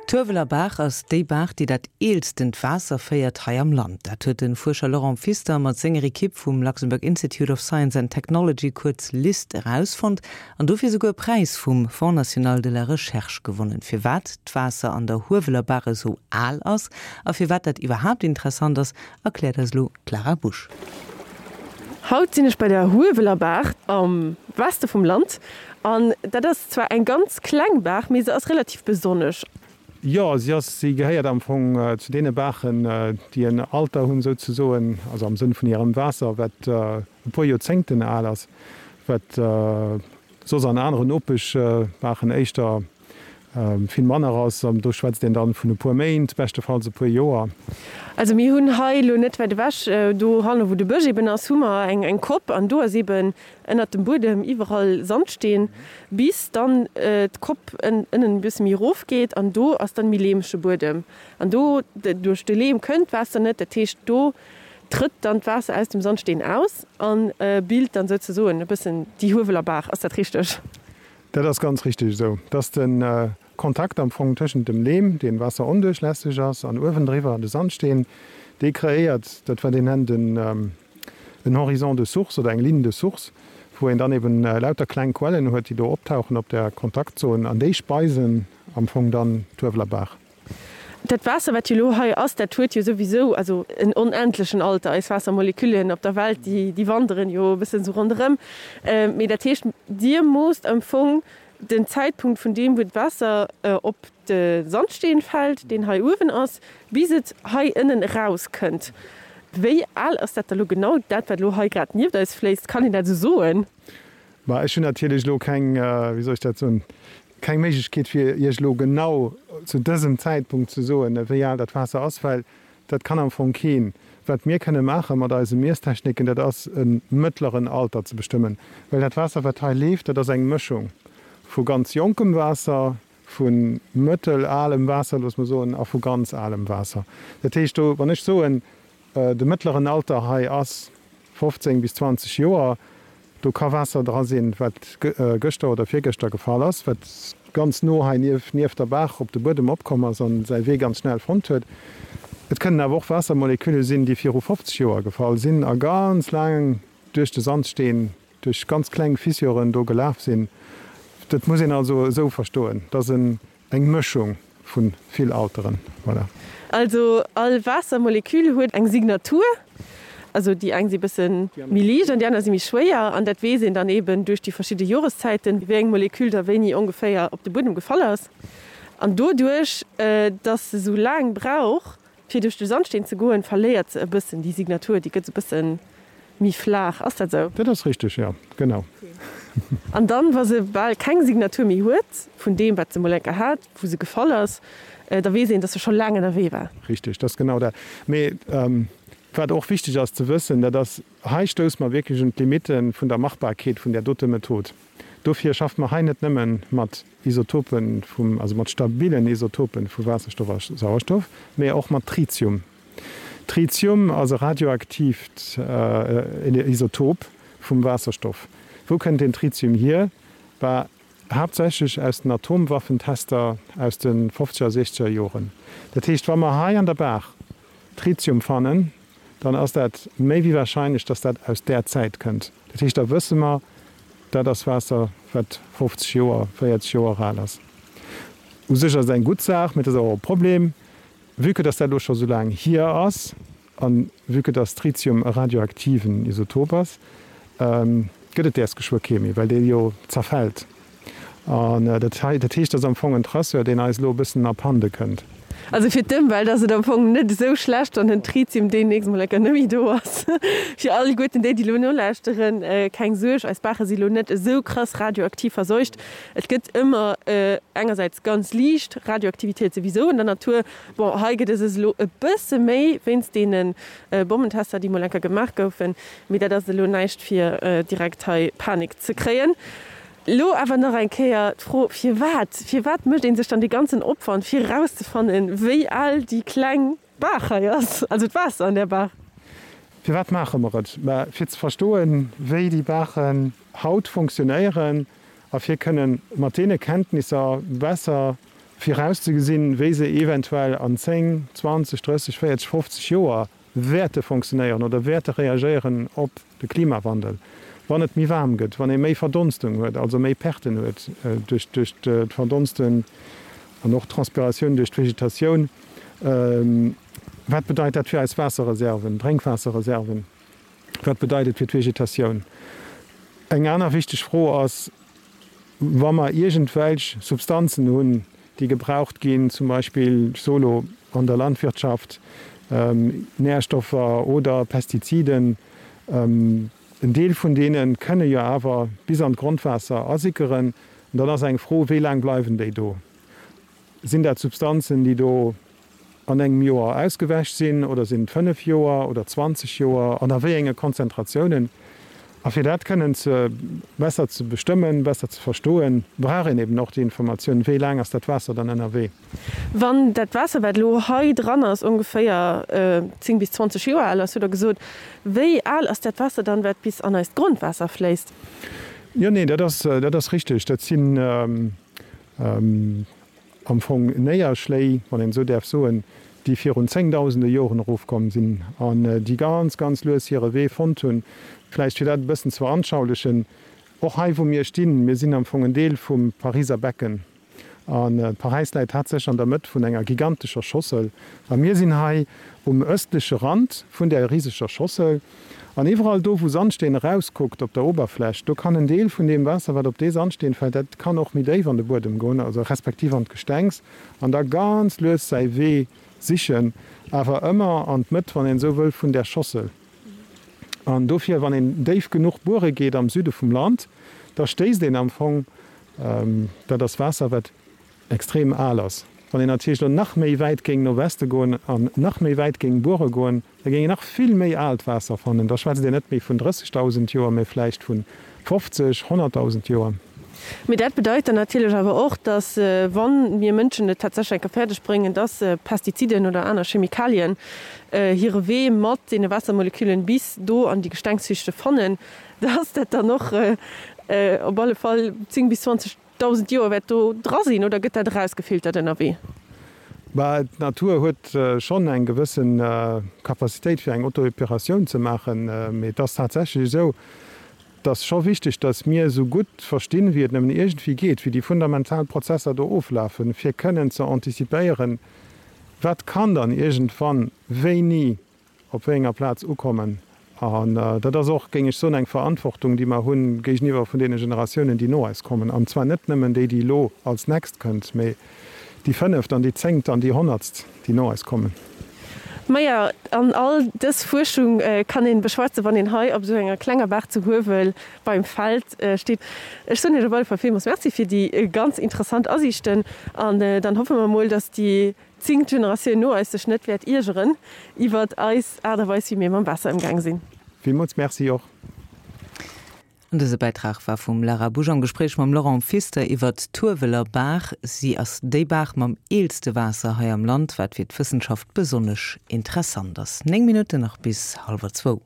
D'Hueweler Baach ass déi Baach, déi dat eelstent Waasser féiert hei am Land. Dat huet de Fuerscher Laurent Pfister mat senger Ekipp vum Luxembourg Institute of Science and Technology, kuerz LIST, erausfonnt an dofir souguer e Präis vum Fonds national de la recherche gewonnen. Firwat d'Waasser an der Hueweler Baach esou al ass a firwat dat iwwerhaapt interessant ass, erkläert eis elo d'Lara Busch. Haut sinn ech bei der Hueweler Baach am Weste vum Land an dat ass zwar eng ganz kleng Baach, mee se ass relativ besonnesch. Jo, si ass, si gehéiert am Fong zu deene Baachen, déi en Alter hunn souzesoen, also am Sënn vun hirem Waasser, wat e puer Joerzéngten al ass, wat soss an aneren Nopeschbaachen éischter vill manner ass. An do schwätzt een dann vun e puer Méint, beschtefalls e puer Joer. Also mir hunn hei elo net wäit ewech, do hanne wou de Bësch eben ass, hu mer eng Kopp an do ass eben ënnert dem Buedem iwwerall Sandsteen, bis dann d'Kopp ënnen e bësse méi erof geet an do ass dann méi leemege Buedem. An do duerch de Leem kënnt d'Waasser net, dat heescht do trëtt dann d'Waasser aus dem Sandsteen aus a bilt dann souzesoen e bëssen déi Hueweler Baach. Ass dat richteg? Dat ass ganz richteg esou, dass de Kontakt am Fong tëschent dem Leem, dee waasseronduerchlässeg ass, an uewendriwwer de Sandsteen, dee kreéiert dat, wat een nennt en Horizon de source oder eng Ligne de source, wou een dann eben lauter kleng Quellen huet, déi do optauchen op där Kontaktzon, an déi speisen am Fong dann d'Hueweler Baach. Dat Waasser, wat jo elo hei ass, dat huet jo souwisou also en onendlechen Alter. Eis Waassermoleküllen op der Welt, déi, déi wanderen jo e bëssen esou ronderëm. Mee dat heescht, Dir moosst am Fong den Zäitpunkt vun deem, wou d'Waasser op de Sandsteen fält, deen hei uewen ass, bis et hei ënnen erauskënnt. Wéi al ass dat da lo genau, dat, wat elo hei grad nieft eis fléisst? Kann een dat esou soen? Ma ech hunn natierlech elo keng, wéi soll ech dat soen, keng Méiglechkeet fir Iech elo genau zu dësem Zäitpunkt ze soen, wéi al dat Waasser ass, well dat kann am Fong keen. Wat mir kënne maache mat eise Miesstechniken, dat ass e mëttleren Alter ze bestëmmen, well dat Waasser wat hei leeft, dat ass eng Mëschung vu ganz jonkem Waasser, vu mëttelalem Waasser, loosse mer soen, a vu ganz alem Waasser. Dat heescht do, wann ech soen, De mëttleren Alter hei ass 15 bis 20 Joer. Do ka Waasser dra sinn, wat gëschter oder virgëschter gefall ass, wat ganz no hei nieft der Baach op de Buedem opkomm ass a säi Wee ganz schnell fonnt huet. Et kënnen awer och Waassermolekülle sinn, déi viru 50 Joer gefall sinn a ganz laang duerch de Sandsteen, duerch ganz kleng Fissuren do gelaf sinn. Dat muss een also esou verstoen, dass en Eng Mëschung vu vill Alteren, voilà. Also all Waassermolekül huet eng Signatur. Also déi eng si bësse méi liicht an déi aner si méi schwéier. An dat weess een dann eben duerch déi verschidde Joreszäiten, wéi eng Molekül da wéini ongeféier op de Buedem gefall ass. An doduerch, dass se sou laang brauch, Fir duerch de Sandsteen ze goen, verléiert se e bëssen déi Signatur, déi gëtt esou bësse méi flaach. Ass dat esou? Dat ass richteg, jo, genau. An dann, wa se bal keng Signatur méi huet, vun deem, wat se mol eng Kéier hat, wou se gefall ass, da weess een, dass se scho laang ënnerwee war. Richteg, dat ass genau dat. Mee wat och wichteg ass ze wëssen, dat ass, hei stousse mer wierklech un d'Limitte vun der Machbarkeet vun där dote Method. Dofir schaffe mer hei net nëmme mat Isotopen vum, also mat stabilen Isotopen vu Waasserstoff a Sauerstoff, mee och mat Tritium. Tritium ass e radioaktiivt Isotop vum Waasserstoff. Wou kënnt deen Tritium hier? Bah, haaptsächlech aus den Atomwaffentester aus de fofzeger a siechzeger Joren. Dat heescht, wa mer hei an der Baach Tritium fannen, dann ass dat méi wéi wahrscheinlech, dass dat aus där Zäit kënnt. Dat heescht, da wësse mer, dat ass Waasser, wat 50 Joer, 40 Joer al ass. U sech ass et eng gutt Saach, mee et ass awer och e Problem, vue que dass dat elo scho sou laang hier ass a vue que dass Tritium e radioaktiven Isotop ass, gëtt et däers geschwë kee méi, well dee jo zerfält. An dat hei, dat heescht, dat ass am Fong en Traceur, deen eis elo e bëssen abhande kënnt. Also fir d'Ëmwelt ass et am Fong net esou schlecht, wann den Tritium deemnächst mol enker net méi do ass. Fir alleguerten déi, déi elo nolauschteren, keng Suerg, eis Baache si lo net esou krass radioaktiv verseucht. Et gëtt ëmmer engersäits ganz liicht Radioaktivitéit souwisou an der Natur. Bon, hei gëtt et es elo e bësse méi wéinst deene Bommentester, déi mol enker gemaach goufen. Mee dat ass elo näischt fir direkt hei Panik ze kréien. Elo awer nach eng Kéier d'Fro, Firwat? Firwat mécht ee sech dann dee ganzen Opwand, fir erauszefannen, wéi al déi kleng Baach hei ass, also d'Waasser an där Baach? Firwat maache mer et? Mä fir ze verstoen, wéi déi Baachen haut funktionéieren a fir kënnen mat deene Kenntnisser besser. Virauszegesinn, wéi se eventuell an 10, 20, 30, 40, 50 Joer wäerte fonctionnéieren oder wäerte reagéieren op de Klimawandel, wann et méi waarm gëtt, wann ee méi Verdonstung huet, also méi Perten huet duerch d'Verdonsten an och d'Transpiratioun duerch d'Vegetatioun. Wat bedeit dat fir eis Waasserreserven, Drénkwaasserreserven? Wat bedeit et fir d'Vegetatioun? Eng aner wichteg Fro ass, wa mer iergendwelch Substanzen hunn, déi gebraucht ginn, zum Beispill, ech soe lo, an der Landwirtschaft, Nährstoffer oder Pestiziden, en Deel vun deene kënne jo awer bis an d'Grondwaasser asickeren. An dann ass eng Fro, Wéi laang bleiwen déi do? Sinn dat Substanzen, déi do an engem Joer ausgewäsch sinn oder sinn et 5 Joer oder 20 Joer an a wéi enge Konzentratiounen? A fir dat kënnen ze besser ze bestëmmen, besser ze verstoen, brauch een eben och déi Informatioun, wéi laang ass dat Waasser dann ënnerwee. Wann dat Waasser, wat elo hei dran ass, ongeféier 10 bis 20 Joer al ass, hutt Der gesot, wéi al ass dat Waasser dann, wat bis an eist Grondwaasser fléisst? Jo, nee, dat ass, dat ass richteg. Dat sinn am Fong Néierschléi, wann een esou däerf soen, déi virun zéngdausende Joren erofkomm sinn an déi ganz, ganz lues hire Wee fonnt hunn. Vläicht fir dat e bëssen ze veranschaulichen, och hei wou mir stinn, mir sinn am Fong en Deel vum Pariser Becken an Paräis läit tatsächlech an der Mëtt vun enger gigantescher Schossel a mir sinn hei um ëstleche Rand vun där riseger Schossel. An iwwerall do, wou Sandsteen erauskuckt op der Oberfläch, do kann en Deel vun deem Waasser, wat op dee Sandsteen fält, dat kann och méi déif an de Buedem goen, also respektiv an d'Gestengs, an da ganz lues säi Wee sichen, awer ëmmer an d'Mëtt, wann een esou wëll, vun där Schossel. An dofir, wann een déif genuch buere geet am Süde vum Land, da stéisst een am Fong, dat ass Waasser, wat extrem al ass. Wann een natierlech elo nach méi wäit géing no Weste goen an nach méi wäit géing buere goen, da géing een nach vill méi aalt Waasser fannen. Da schwätzt een net méi vun 30.000 Joer, mä vläicht vu 50, 100.000 Joer. Mee dat bedeit dann natierlech awer och, dass, wa mir Mënschen et tatsächlech eng Kéier fäerdeg bréngen, dass Pestiziden oder aner Chemikalien hire Wee mat deene Waassermoleküllen bis do an déi Gestengsschichte fannen, dass dat dann och op alle Fall 10 bis 20 1.000 Joer wäert do dra sinn, oder gëtt dat erausgefiltert ënnerwee? Bah, d'Natur huet schonn eng gewësse Capacitéit fir eng Autoepuratioun ze maachen, mee et ass tatsächlech esou, et ass scho wichteg, datt mir esou gutt verstinn, wéi et nëmmen iergendwéi geet, wéi déi fundamental Prozesser do oflafen, fir kënnen ze antizipéieren, wat kann dann iergendwann wéini op wéi enger Plaz ukommen. An dat ass och, géing ech soen, eng Verantwortung, déi mer hu géigeniwwer vun deene Generatiounen, déi no eis kommen. An zwar net nëmmen déi, déi elo als nächst kënnt, mee déi fënneft an déi zéngt an déi honnertst, déi no eis kommen. Maja, an all dës Fuerschung kann een beschwätzen, wann een hei op esou enger klenger Baach zu Huewel beim Feld steet. Ech soen Iech op alle Fall villmools Merci fir déi ganz interessant Asiichten an dann hoffe mer mol, dass déi Zéngt Generatioun no eis sech net wäert iergeren iwwert eis Aart a Weis wéi mir mam Waasser ëmgaang sinn. Villmools Merci och. An dëse Bäitrag war vum Lara Busch am Gespréich mam Laurent Pfister iwwert d'Hueweler Baach. Si ass déi Baach mam eelste Waasser hei am Land, wat fir d'Wëssenschaft besonnesch interessant ass. 9 Minutten nach bis hallwer zwou.